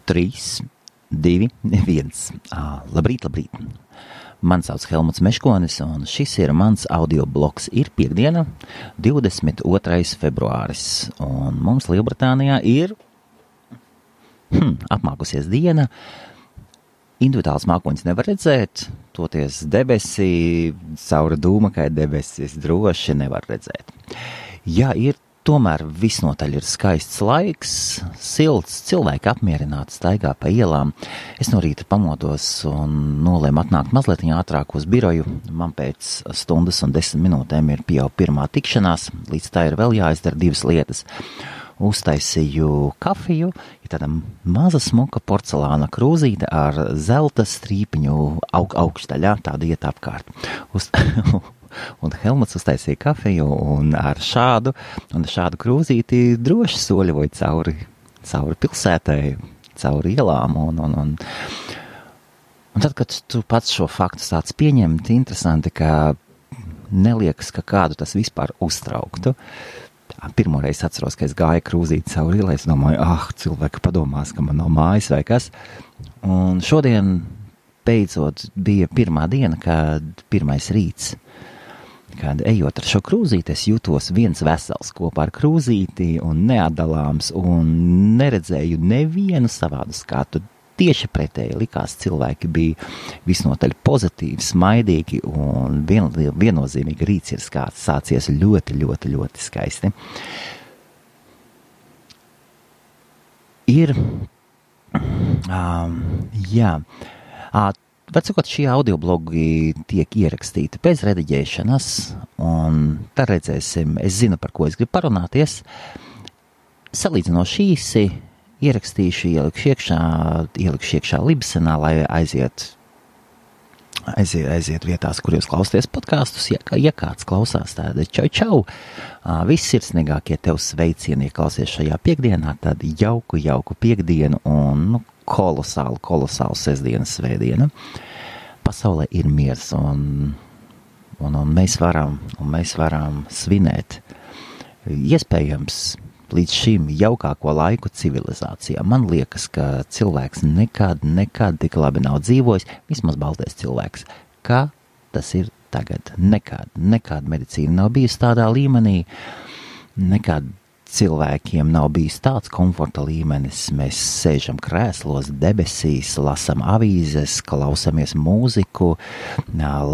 3, 2, 1. Labrīt. Mani sauc Helmuts Meškonis, un šis ir mans audio blogs. Ir piekdiena, 22. februāris, un mums Lielbritānijā ir apmākusies diena. Individuāls mākoņus nevar redzēt, toties debesī, cauri dūmakai debesis droši nevar redzēt. Jā, ir tomēr visnotaļ ir skaists laiks, silts, cilvēki apmierināti staigā pa ielām. Es no rīta pamodos un nolēmu atnākt mazliet ātrāk uz biroju. Man pēc stundas un 10 minūtēm ir jau pirmā tikšanās, līdz tā ir vēl jāizdara 2 lietas. Uztaisīju kafiju, ir tāda maza smuka porcelāna krūzīte ar zelta strīpiņu augšdaļā, tāda iet apkārt. Un Helmuts uztaisīja kafiju un ar šādu krūzīti droši soļoja cauri pilsētai, cauri ielām. Un tad, kad tu pats šo faktu sāc pieņemt, interesanti, ka neliekas, ka kādu tas vispār uztrauktu. Pirmoreiz atceros, ka es gāju krūzīti cauri ielai, es domāju, cilvēki padomās, ka man nav mājas vai kas. Un šodien beidzot bija pirmā diena, kad pirmais rīts. Kad ejot ar šo krūzīti, es jūtos viens vesels kopā ar krūzīti un neatdalāms un neredzēju nevienu savādu skatu. Tieši pretēji likās, cilvēki bija visnotaļ pozitīvi, smaidīgi un viennozīmīgi rīts ir sācies ļoti, ļoti, ļoti skaisti. Vecākot, šie audioblogi tiek ierakstīti bez rediģēšanas, un tad redzēsim, es zinu, par ko es gribu parunāties. Salīdzinoši īsi ierakstīšu, ielikšu iekšā Libsenā, lai aiziet vietās, kur jūs klausāties podkastus. Ja kāds klausās, tad čau. Viss sirsnīgākie tev sveicieni, ja klausies šajā piekdienā, tad jauku piekdienu un kolosālu sestdienas svētdienu. Pasaulē ir miers un mēs varam svinēt. Iespējams, līdz šim jaukāko laiku civilizācijā. Man liekas, ka cilvēks nekad tik labi nav dzīvojis, vismaz baltais cilvēks. Kā tas ir tagad? Nekad medicīna nav bijusi tādā līmenī, nekad cilvēkiem nav bijis tāds komforta līmenis. Mēs sēžam krēslos, debesīs, lasam avīzes, klausamies mūziku,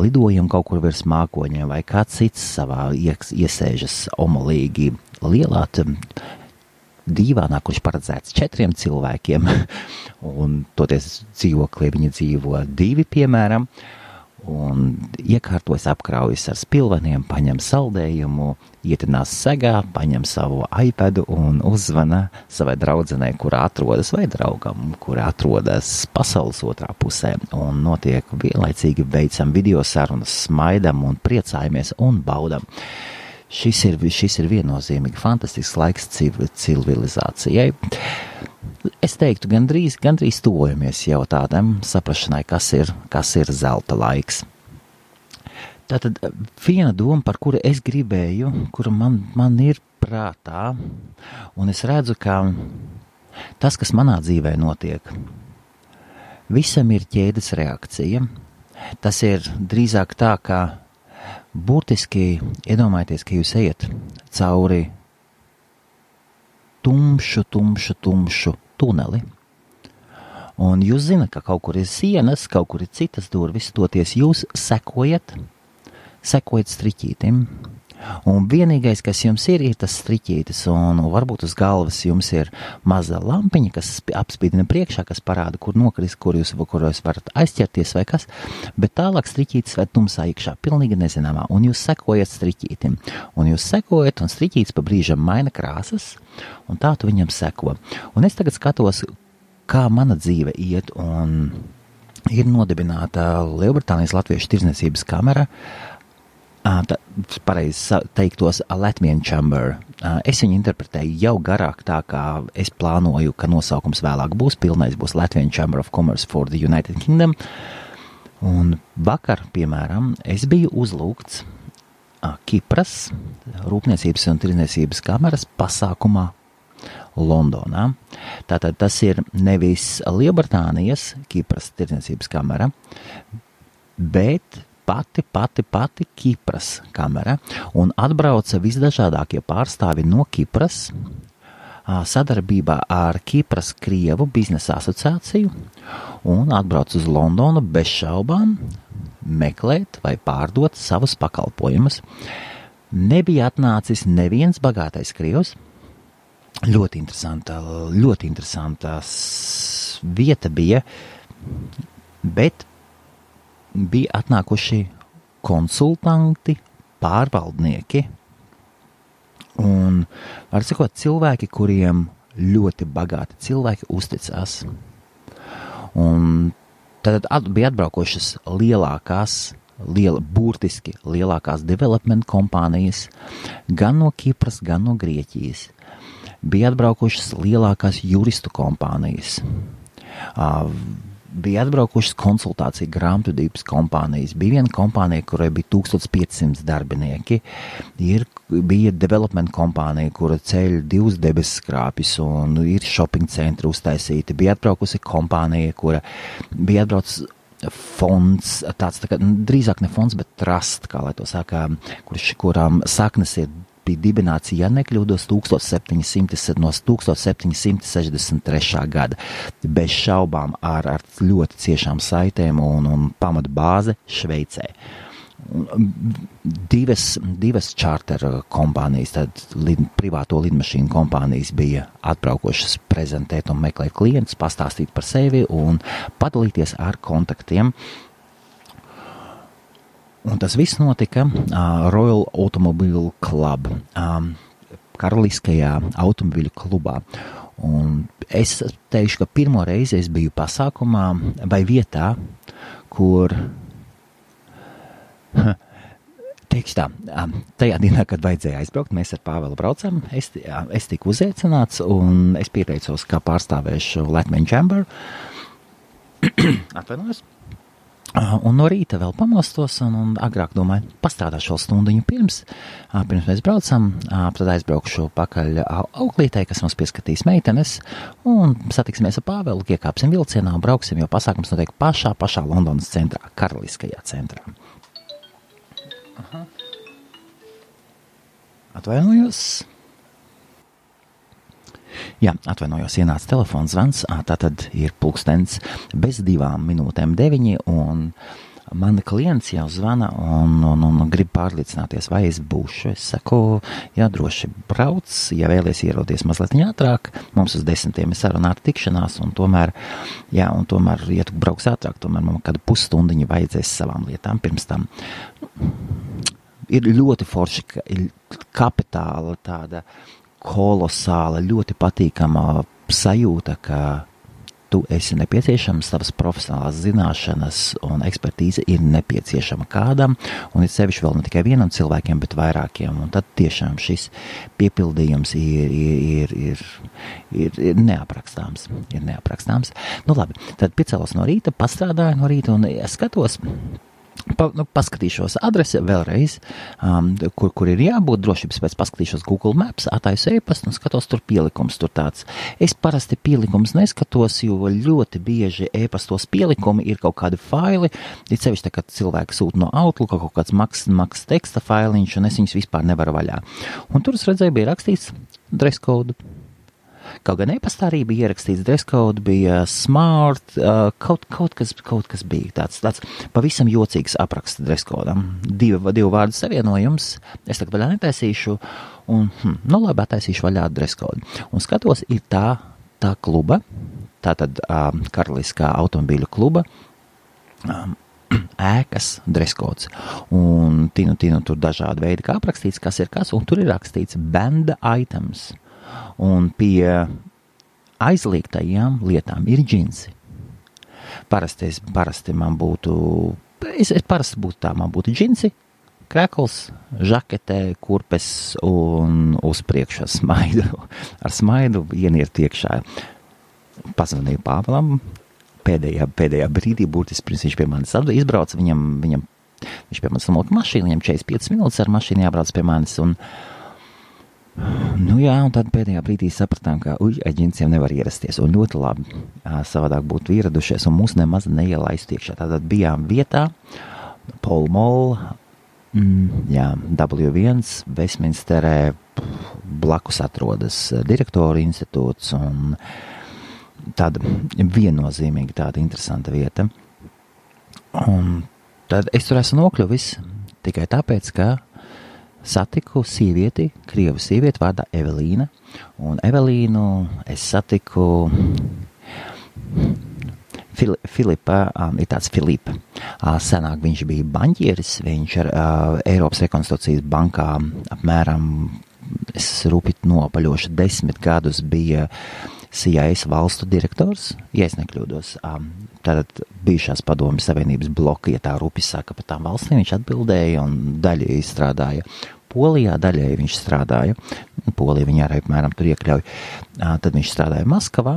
lidojam kaut kur virs mākoņiem vai kāds cits savā iesēžas omolīgi lielā dīvānā, kurš paredzēts 4 cilvēkiem, un toties dzīvoklī viņi dzīvo 2, piemēram, un iekārtojas apkraujas ar spilveniem, paņem saldējumu, ietinās segā, paņem savu iPadu un uzzvana savai draudzenei, kurā atrodas, vai draugam, kurā atrodas pasaules otrā pusē, un notiek vienlaicīgi veicam video sarunas, smaidam un priecājamies un baudam. Šis ir viennozīmīgi fantastisks laiks civilizācijai. Es teiktu, gandrīz tuvojamies jau tādam saprašanai, kas ir zelta laiks. Tātad viena doma, par kuru es gribēju, kura man ir prātā, un es redzu, ka tas, kas manā dzīvē notiek, visam ir ķēdes reakcija. Tas ir drīzāk tā, ka burtiski iedomājieties, ka jūs ejat cauri tumšu tuneli. Un jūs zināt, ka kaut kur ir sienas, kaut kur ir citas durvis, toties jūs sekojat striķītim. Un vienīgais, kas jums ir tas striķītis, un varbūt uz galvas jums ir maza lampiņa, kas apspīdina priekšā, kas parāda, kur nokrist, kur jūs varat aizķerties vai kas, bet tālāk striķītis vai tumsā iekšā, pilnīgi nezināmā, un jūs sekojat striķītim. Un jūs sekojat, un striķītis pa brīžam maina krāsas, un tā tu viņam seko. Un es tagad skatos, kā mana dzīve iet, un ir nodibināta Lielbritānijas Latviešu tirdzniecības kamera, pareizi teiktos Latvian Chamber. Es viņu interpretēju jau garāk, tā kā es plānoju, ka nosaukums vēlāk būs, pilnais būs Latvian Chamber of Commerce for the United Kingdom. Un vakar, piemēram, es biju uzlūgts Kipras Rūpniecības un tirdzniecības kameras pasākumā Londonā. Tātad tas ir nevis Lielbritānijas Kipras tirdzniecības kamera, bet pati Kipras kamera, un atbrauca visdažādākie pārstāvi no Kipras, sadarbībā ar Kipras Krievu biznesa asociāciju, un atbrauca uz Londonu bez šaubām meklēt vai pārdot savus pakalpojumus. Nebija atnācis neviens bagātais krievs. Ļoti interesanta vieta bija, bet bija atnākuši konsultanti, pārvaldnieki un, var sakot, cilvēki, kuriem ļoti bagāti cilvēki uzticās. Un tad bija atbraukošas burtiski lielākās development kompānijas gan no Kipras, gan no Grieķijas. Bija atbraukušas lielākās juristu kompānijas. Bija atbraukušas konsultāciju grāmatvedības kompānijas. Bija viena kompānija, kurai bija 1500 darbinieki. Bija development kompānija, kura ceļ 2 debesu skrāpjus un ir shopping centri uztaisīti. Bija atbraukusi kompānija, kura bija atbraucis fonds, tāds tā kā, drīzāk ne fonds, bet trust, kā lai to saka, kurām saknes bija dibināts, ja nekļūdos, 1763. gada. Bez šaubām ar ļoti ciešām saitēm un pamata bāze Šveicē. Divas charter kompānijas, tad privāto lidmašīnu kompānijas bija atbraukošas prezentēt un meklēt klientus, pastāstīt par sevi un padalīties ar kontaktiem. Un tas viss notika Royal Automobile Club, karaliskajā automobiļu klubā. Un es teikšu, ka pirmo reizi es biju pasākumā vai vietā, kur, teikšu tā, tajā dienā, kad vajadzēja aizbraukt, mēs ar Pāvelu braucam, es tiku uzaicināts un es pieteicos, kā pārstāvēšu Latvian Chamber. Atvainojos. Un no rīta vēl pamostos un agrāk domāju, pastrādāšu vēl stundiņu pirms mēs braucam, tad aizbraukšu pakaļ auklītei, kas mums pieskatīs meitenes, un satiksimies ar Pāvelu, iekāpsim vilcienā un brauksim, jo pasākums notiek pašā Londonas centrā, karaliskajā centrā. Aha. Atvainojos. Jā, atvainojos, ienāca telefons zvans, tātad ir pulkstens bez 2:09, un mani klients jau zvana un grib pārliecināties, vai es būšu. Es saku, jā, droši brauc, ja vēlies ieroties mazliet ātrāk, mums uz 10 ir sarunāta tikšanās, un tomēr, ja tu brauks ātrāk, tomēr man kādu pusstundiņu vajadzēs savām lietām pirms tam. Ir ļoti forši, kapitāla tāda kolosāla, ļoti patīkama sajūta, ka tu esi nepieciešams, tavas profesionālās zināšanas un ekspertīze ir nepieciešama kādam, un ir sevišķi vēl ne tikai vienam cilvēkiem, bet vairākiem, un tad tiešām šis piepildījums ir neaprakstāms. Nu labi, tad piecēlos no rīta, pastrādāju no rīta, un es skatos, paskatīšos adresi vēlreiz, kur ir jābūt, drošības pēc paskatīšos Google Maps, attaisu e-pastu un skatos tur pielikums, tur tāds. Es parasti pielikums neskatos, jo ļoti bieži e-pastos pielikumi ir kaut kādi faili, ir sevišķi tā, kad cilvēki sūta no Outlook kaut kāds maks teksta failiņš, un es viņus vispār nevaru vaļā. Un tur es redzēju, bija rakstīts dress code. Kaut gan e-pastā arī bija ierakstīts dress code, bija smart, kaut kas bija tāds pavisam jocīgs apraksts dress codam. Divu vārdu savienojums, es tagad vaļā netaisīšu, un, labi, taisīšu vaļā dress code. Un skatos, ir tā kluba, tātad karaliskā automobīļu kluba, ēkas dress codes. Un tinu tur dažādi veidi, kā aprakstīts, kas ir kas, un tur ir rakstīts band items. Un pie aizliegtajām lietām ir džinsi. Parasti man būtu, man būtu džinsi, krekls, žakete, kurpes un uz priekšu ar smaidu ienirt iekšā. Pazvanīju Pāvelam pēdējā brīdī, burtiski pirms viņš pie manis izbrauca, viņš pie manis samulka mašīnu, viņam 45 minūtes ar mašīnu jābrauc pie manis, un Nu jā, un tad pēdējā brīdī sapratām, ka aģentiem nevar ierasties, un ļoti labi savādāk būtu ieradušies, un mūs nemaz neielaistu iekšā. Tātad bijām vietā, Pall Mall, W1, Westminsterē, blakus atrodas direktoru institūts, un tāda viennozīmīgi tāda interesanta vieta. Un tad es tur esmu nokļuvis tikai tāpēc, ka satiku sievieti, krievu sievieti vārdā Evelīna, un Evelīnu es satiku Filipa, ir tāds Filipa. Senāk viņš bija baņķieris, viņš ar Eiropas rekonstrukcijas bankā apmēram, es rūpīt nopaļošu 10 gadus bija CIS valstu direktors, ja es nekļūdos. Tātad bijušās padomju savienības bloka, ja tā rupi saka par tām valstīm, viņš atbildēja un daļai strādāja Polijā, daļai viņš strādāja, Polija viņa arī apmēram tur iekļauj, tad viņš strādāja Maskavā,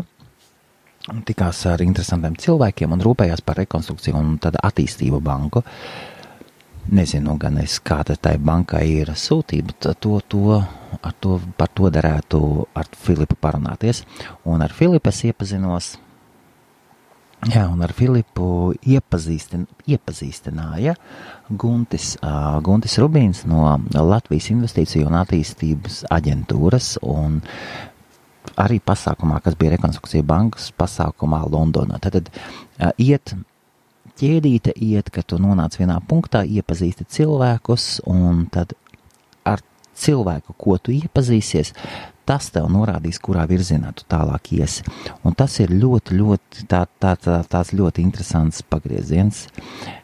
tikās ar interesantiem cilvēkiem un rūpējās par rekonstrukciju un tad attīstību banku. Nezinu gan es, kāda tai bankai ir sūtība, par to derētu ar Filipu parunāties. Un ar Filipu es iepazinos, un ar Filipu iepazīstināja Guntis Rubīns no Latvijas Investīciju un attīstības aģentūras un arī pasākumā, kas bija rekonstrukcija bankas pasākumā Londonā. Tad ķēdīte iet, ka tu nonāc vienā punktā, iepazīsti cilvēkus, un tad ar cilvēku, ko tu iepazīsies, tas tev norādīs, kurā virzienā tu tālāk iesi. Un tas ir ļoti, tāds ļoti interesants pagrieziens.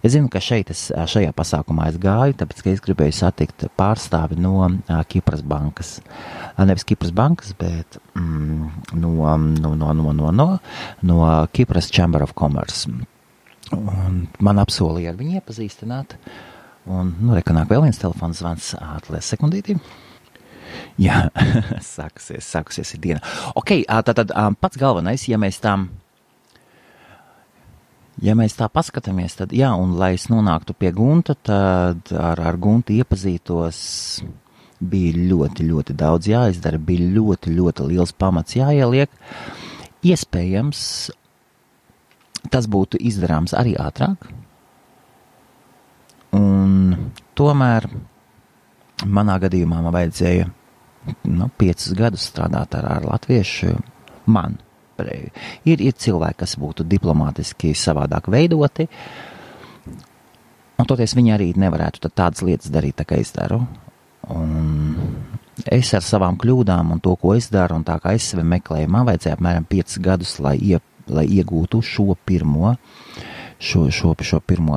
Es zinu, ka šajā pasākumā es gāju, tāpēc, ka es gribēju satikt pārstāvi no Kipras bankas. Nevis Kipras bankas, bet no Kipras Chamber of Commerce. Un man apsolīja ar viņu iepazīstināt. Un, rekonāk vēl viens telefons zvans, atlies sekundītī. Jā, sākusies ir diena. Ok, tātad pats galvenais, ja mēs tā paskatāmies, tad jā, un lai es nonāktu pie Gunta, tad ar Guntu iepazītos bija ļoti daudz jāizdara, bija ļoti liels pamats jāieliek. Iespējams, tas būtu izdarāms arī ātrāk, un tomēr manā gadījumā man vajadzēja 5 gadus strādāt ar latviešu. Man ir cilvēki, kas būtu diplomātiski savādāk veidoti, un toties viņi arī nevarētu tādas lietas darīt, tā kā es daru. Un es ar savām kļūdām un to, ko es daru, un tā kā es sevi meklēju, man vajadzēja apmēram 5 gadus, lai iegūtu šo pirmo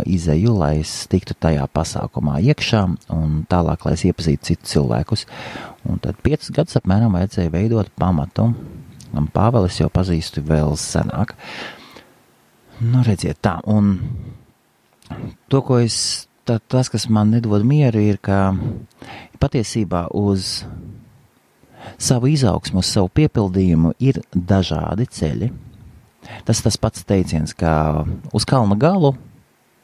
izeju, lai es tiktu tajā pasākumā iekšā un tālāk, lai es iepazītu citus cilvēkus. Un tad 5 gadus apmēram vajadzēja veidot pamatu. Un Pāvelis jau pazīstu vēl senāk. Redziet tā, un to, ko tas, kas man nedod mieru, ir, ka patiesībā uz savu izaugsmu, uz savu piepildījumu ir dažādi ceļi. Tas pats teiciens, ka uz kalna galu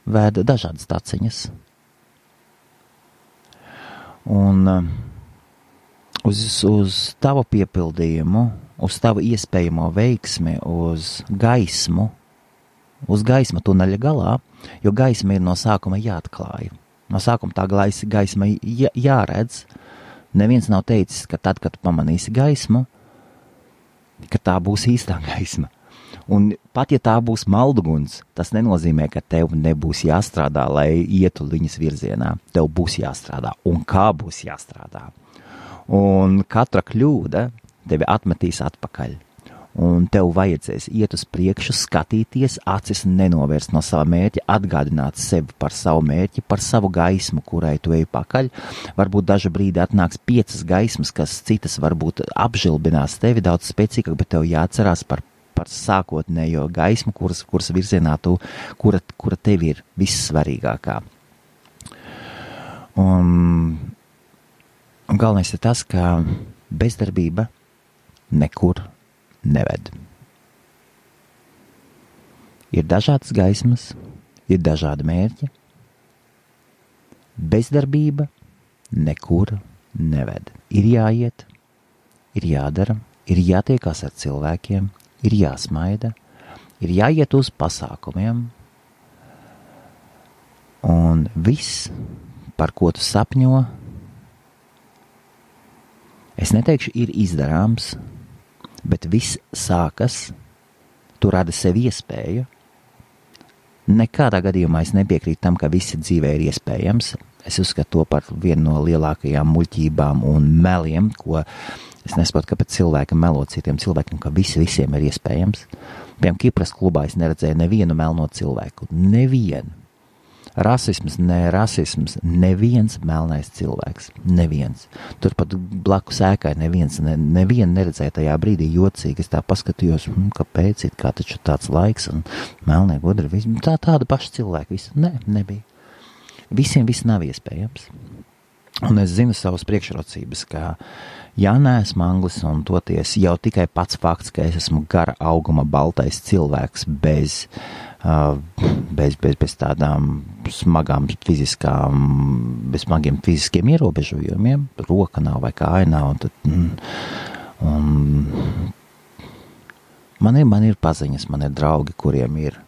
vēd dažādas taciņas. Un uz tavu piepildījumu, uz tavu iespējamo veiksmi, uz gaismu tuneļa galā, jo gaisma ir no sākuma jāatklāja. No sākuma tā gaisma jāredz. Neviens nav teicis, ka tad, kad pamanīsi gaismu, ka tā būs īstā gaisma. Un pat ja tā būs malduguns, tas nenozīmē, ka tev nebūs jāstrādā, lai ietu viņas virzienā. Tev būs jāstrādā, un kā būs jāstrādā. Un katra kļūda tevi atmetīs atpakaļ. Un tev vajadzēs iet uz priekšu, skatīties, acis nenovērst no sava mērķa, atgādināt sevi par savu mērķi, par savu gaismu, kurai tu ej pakaļ. Varbūt dažu brīdi atnāks 5 gaismas, kas citas varbūt apžilbinās tevi daudz spēcīgāk, bet tev jāatcerās par sākotnējo gaismu, kuras virzienā kura tev ir vissvarīgākā. Un galvenais ir tas, ka bezdarbība nekur neved. Ir dažādas gaismas, ir dažādi mērķi. Bezdarbība nekur neved. Ir jāiet, ir jādara, ir jātiekās ar cilvēkiem, ir jāsmaida, ir jāiet uz pasākumiem, un viss, par ko tu sapņo, es neteikšu, ir izdarāms, bet viss sākas, tu radi sev iespēju. Nekādā gadījumā es nepiekrītu tam, ka visi dzīvē ir iespējams. Es uzskatu to par vienu no lielākajām muļķībām un meliem, ko es nesaprotu, kāpēc cilvēki melo citiem cilvēkiem, ka visiem ir iespējams. Piemēram, Kipras klubā es neredzēju nevienu melno cilvēku. Nevienu. Rasisms, neviens melnais cilvēks. Neviens. Turpat blakus ēkai nevienu neredzēja tajā brīdī jocīgi. Es tā paskatījos, kāpēc ir kā taču tāds laiks un melnie gudri. Tāda paša cilvēka. Nebija. Visiem viss nav iespējams. Un es zinu savas priekšrocības, ka ja neesmu anglis un toties jau tikai pats fakts, ka es esmu gara auguma baltais cilvēks bez tādām smagām bez smagiem fiziskiem ierobežojumiem, roka nav vai kāja nav, man ir paziņas, man ir draugi, kuriem ir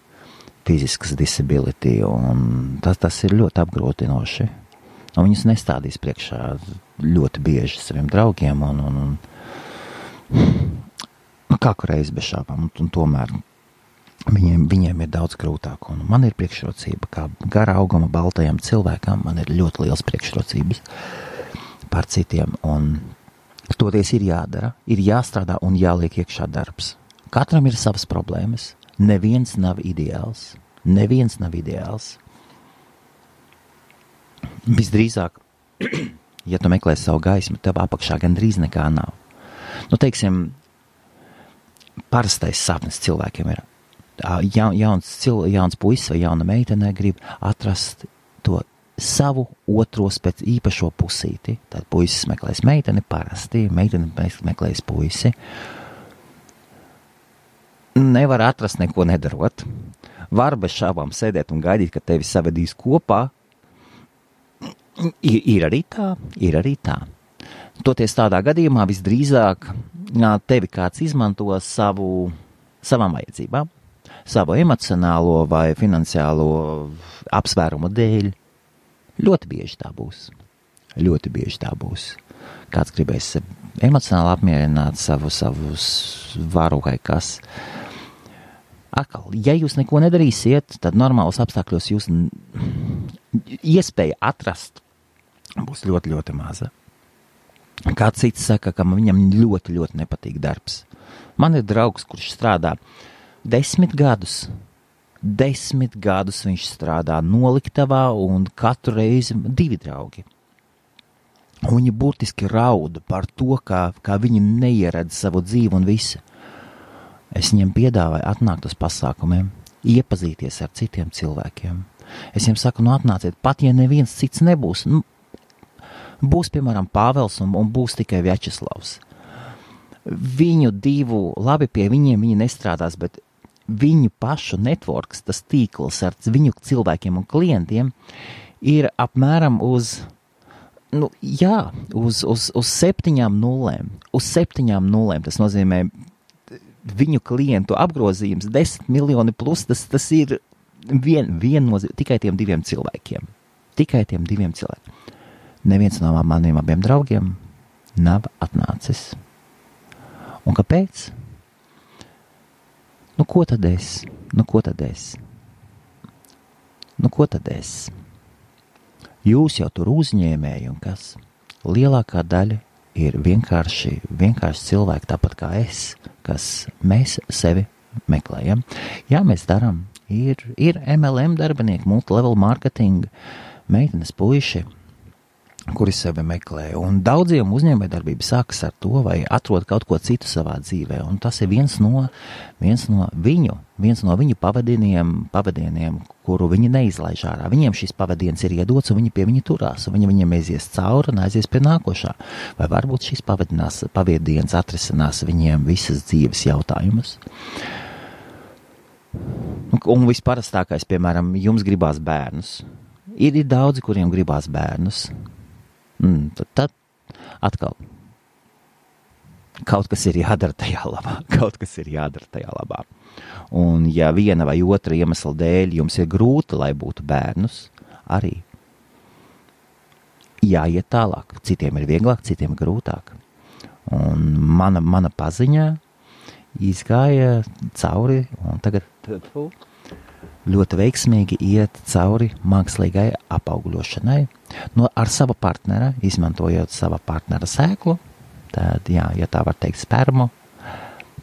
fiziskas disability, un tas ir ļoti apgrūtinoši. Un viņus nestādīs priekšā ļoti bieži saviem draugiem, un kāku reizi bez šāpām, un tomēr viņiem ir daudz grūtāk, un man ir priekšrocība, kā gara auguma baltajam cilvēkam, man ir ļoti liels priekšrocības par citiem, un toties ir jādara, ir jāstrādā un jāliek iekšā darbs. Katram ir savas problēmas, neviens nav ideāls. Visdrīzāk, ja tu meklē savu gaismu, tev apakšā gandrīz nekā nav. Teiksim, parastais sapnis cilvēkiem ir. Jauns puisis vai jauna meitene grib atrast to savu otro pēc īpašo pusīti. Tad puisis meklēs meiteni parasti, meitene meklēs puisi. Nevar atrast neko nedarot. Var bez šābām sēdēt un gaidīt, ka tevi savedīs kopā. Ir arī tā. Toties tādā gadījumā visdrīzāk tevi kāds izmanto savām vajadzībām, savu emocionālo vai finansiālo apsvērumu dēļ. Ļoti bieži tā būs. Kāds gribēs emocionāli apmierināt savu varu vai kas. Atkal, ja jūs neko nedarīsiet, tad normālos apstākļos jūs iespēja atrast būs ļoti, ļoti maza. Kāds cits saka, ka viņam ļoti, ļoti nepatīk darbs. Man ir draugs, kurš strādā 10 gadus. 10 gadus viņš strādā noliktavā un katru reizi 2 draugi. Un viņi burtiski rauda par to, kā viņi neieredz savu dzīvi un visu. Es viņiem piedāvāju atnākt uz pasākumiem, iepazīties ar citiem cilvēkiem. Es viņiem saku, atnāciet, pat ja neviens cits nebūs. Būs, piemēram, Pāvels un būs tikai Vjačeslavs. Viņu divu, labi pie viņiem viņi nestrādās, bet viņu pašu networks, tas tīkls ar viņu cilvēkiem un klientiem ir apmēram uz 7 nulēm. Uz 7 nulēm tas nozīmē viņu klientu apgrozījums 10 miljoni plus, tas ir tikai tiem 2 cilvēkiem. Neviens no maniem abiem draugiem nav atnācis. Un kāpēc? Ko tad es? Jūs jau tur uzņēmēji un kas? Lielākā daļa ir vienkārši cilvēki, tāpat kā es, kas mēs sevi meklējam. Jā, mēs darām. Ir MLM darbinieki, multilevel marketing, meitenes puiši, kuri sevi meklē. Un daudziem uzņēmējdarbība sākas ar to, vai atrod kaut ko citu savā dzīvē. Un tas ir viens no viņu pavadieniem, kuru viņi neizlaiž ārā. Viņiem šis pavadiens ir iedots, un viņi pie viņa turās, un viņi viņiem aizies cauri un aizies pie nākošā. Vai varbūt šis pavadiens atrisinās viņiem visas dzīves jautājumus. Un visparastākais, piemēram, jums gribās bērnus. Ir daudzi, kuriem gribās bērnus. Tad atkal kaut kas ir jādara tajā labā. Un ja viena vai otra iemesla dēļ jums ir grūti, lai būtu bērnus, arī jāiet tālāk. Citiem ir vieglāk, citiem ir grūtāk. Un mana paziņā izgāja cauri, un tagad ļoti veiksmīgi iet cauri mākslīgai apaugļošanai. Ar sava partnera, izmantojot sava partnera sēklu, tad, jā, ja tā var teikt spermu,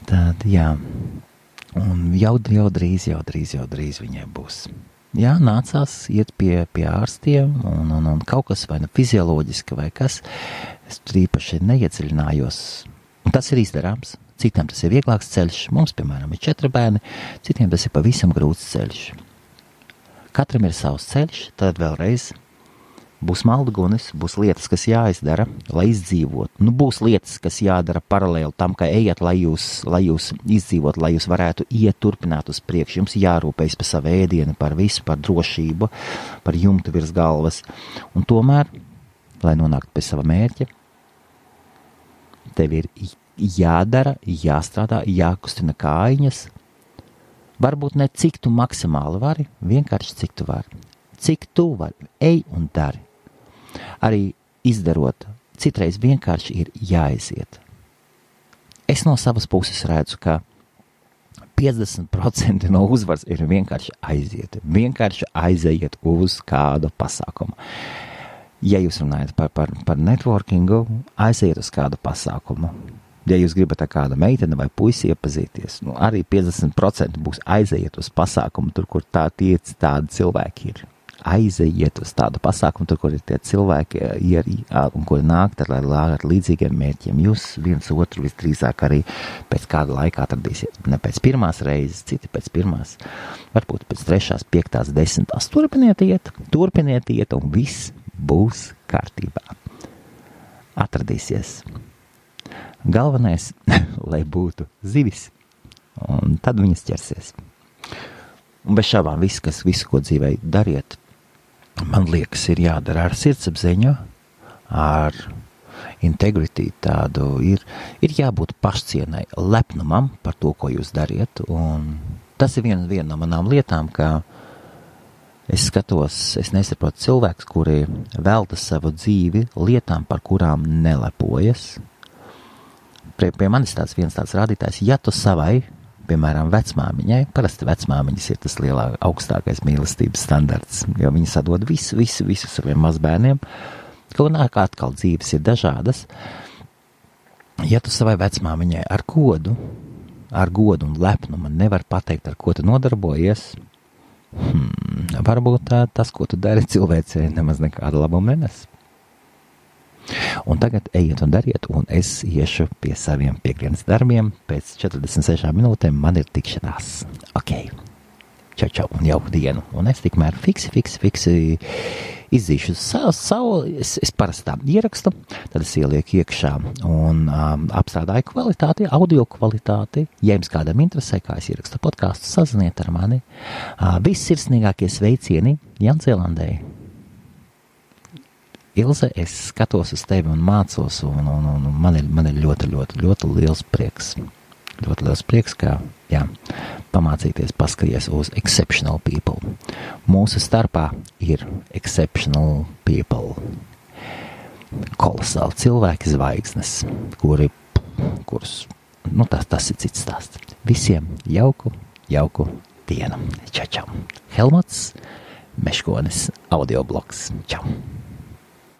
tad, jā, un jau drīz viņai būs. Jā, nācās iet pie ārstiem, un kaut kas vai fizioloģiski vai kas, es tur īpaši neiedziļinājos. Un tas ir izdarāms. Citiem tas ir vieglāks ceļš. Mums, piemēram, ir 4 bērni, citiem tas ir pavisam grūts ceļš. Katram ir savs ceļš, tad vēlreiz būs maldugunis, būs lietas, kas jāizdara, lai izdzīvot. Būs lietas, kas jādara paralēli tam, ka ejat, lai jūs izdzīvot, lai jūs varētu iet turpināt uz priekšu. Jums jārūpējas par savu ēdienu, par visu, par drošību, par jumtu virs galvas. Un tomēr, lai nonāktu pie sava mērķa, tev ir jādara, jāstrādā, jākustina kājiņas. Varbūt ne cik tu maksimāli vari, vienkārši cik tu vari. Cik tu vari, ej un dari. Arī izdarot, citreiz vienkārši ir jāaiziet. Es no savas puses redzu, ka 50% no uzvaras ir vienkārši aiziet. Vienkārši aiziet uz kādu pasākumu. Ja jūs runājat par networkingu, aiziet uz kādu pasākumu. Ja jūs gribat ar kādu meiteni vai puisi iepazīties, arī 50% būs aiziet uz pasākumu, tur, kur tādi cilvēki ir. Aiziet uz tādu pasākumu, tur, kur ir tie cilvēki, un kuri nāk ar līdzīgiem mērķiem. Jūs viens otru visdrīzāk arī pēc kāda laika atradīsiet. Ne pēc pirmās reizes, citi pēc pirmās, varbūt pēc 3., 5., 10. Turpiniet iet, un viss būs kārtībā. Atradīsies. Galvenais, lai būtu zivis, un tad viņas ķersies. Un bez šābām visu, ko dzīvē dariet, man liekas, ir jādara ar sirdsapziņu, ar integrity tādu, ir jābūt pašcienai, lepnumam par to, ko jūs dariet, un tas ir viena no manām lietām, ka es skatos, es nesaprotu cilvēkus, kuri velta savu dzīvi lietām, par kurām nelepojas. Pie manis viens tāds rādītājs, ja tu savai, piemēram, vecmāmiņai, parasti vecmāmiņas ir tas augstākais mīlestības standarts, jo viņi sadod visu saviem mazbērniem, kaut nāk atkal dzīves ir dažādas. Ja tu savai vecmāmiņai ar godu un lepnumu nevar pateikt, ar ko tu nodarbojies, varbūt tas, ko tu dari cilvēcei, nemaz nekādu labumu nenes. Un tagad ejiet un dariet, un es iešu pie saviem piekdienas darbiem. Pēc 46 minūtēm man ir tikšanās. Ok, čau, un jauku dienu. Un es tikmēr fiksi izzīšu savu, es parasti tā ierakstu, tad es ielieku iekšā un apstrādāju kvalitāti, audio kvalitāti. Ja jums kādam interesē, kā es ierakstu podcastu, saziniet ar mani. Vissirsnīgākie sveicieni Jaunzēlandē. Ilze, es skatos uz tevi un mācos, un man ir ļoti liels prieks. Ļoti liels prieks, ka, jā, pamācīties paskaties uz exceptional people. Mūsu starpā ir exceptional people. Kolosāli cilvēki zvaigznes, kurus, tas ir cits stāsts. Visiem jauku dienu. Čau. Helmuts Meškonis, audioblogs. Čau.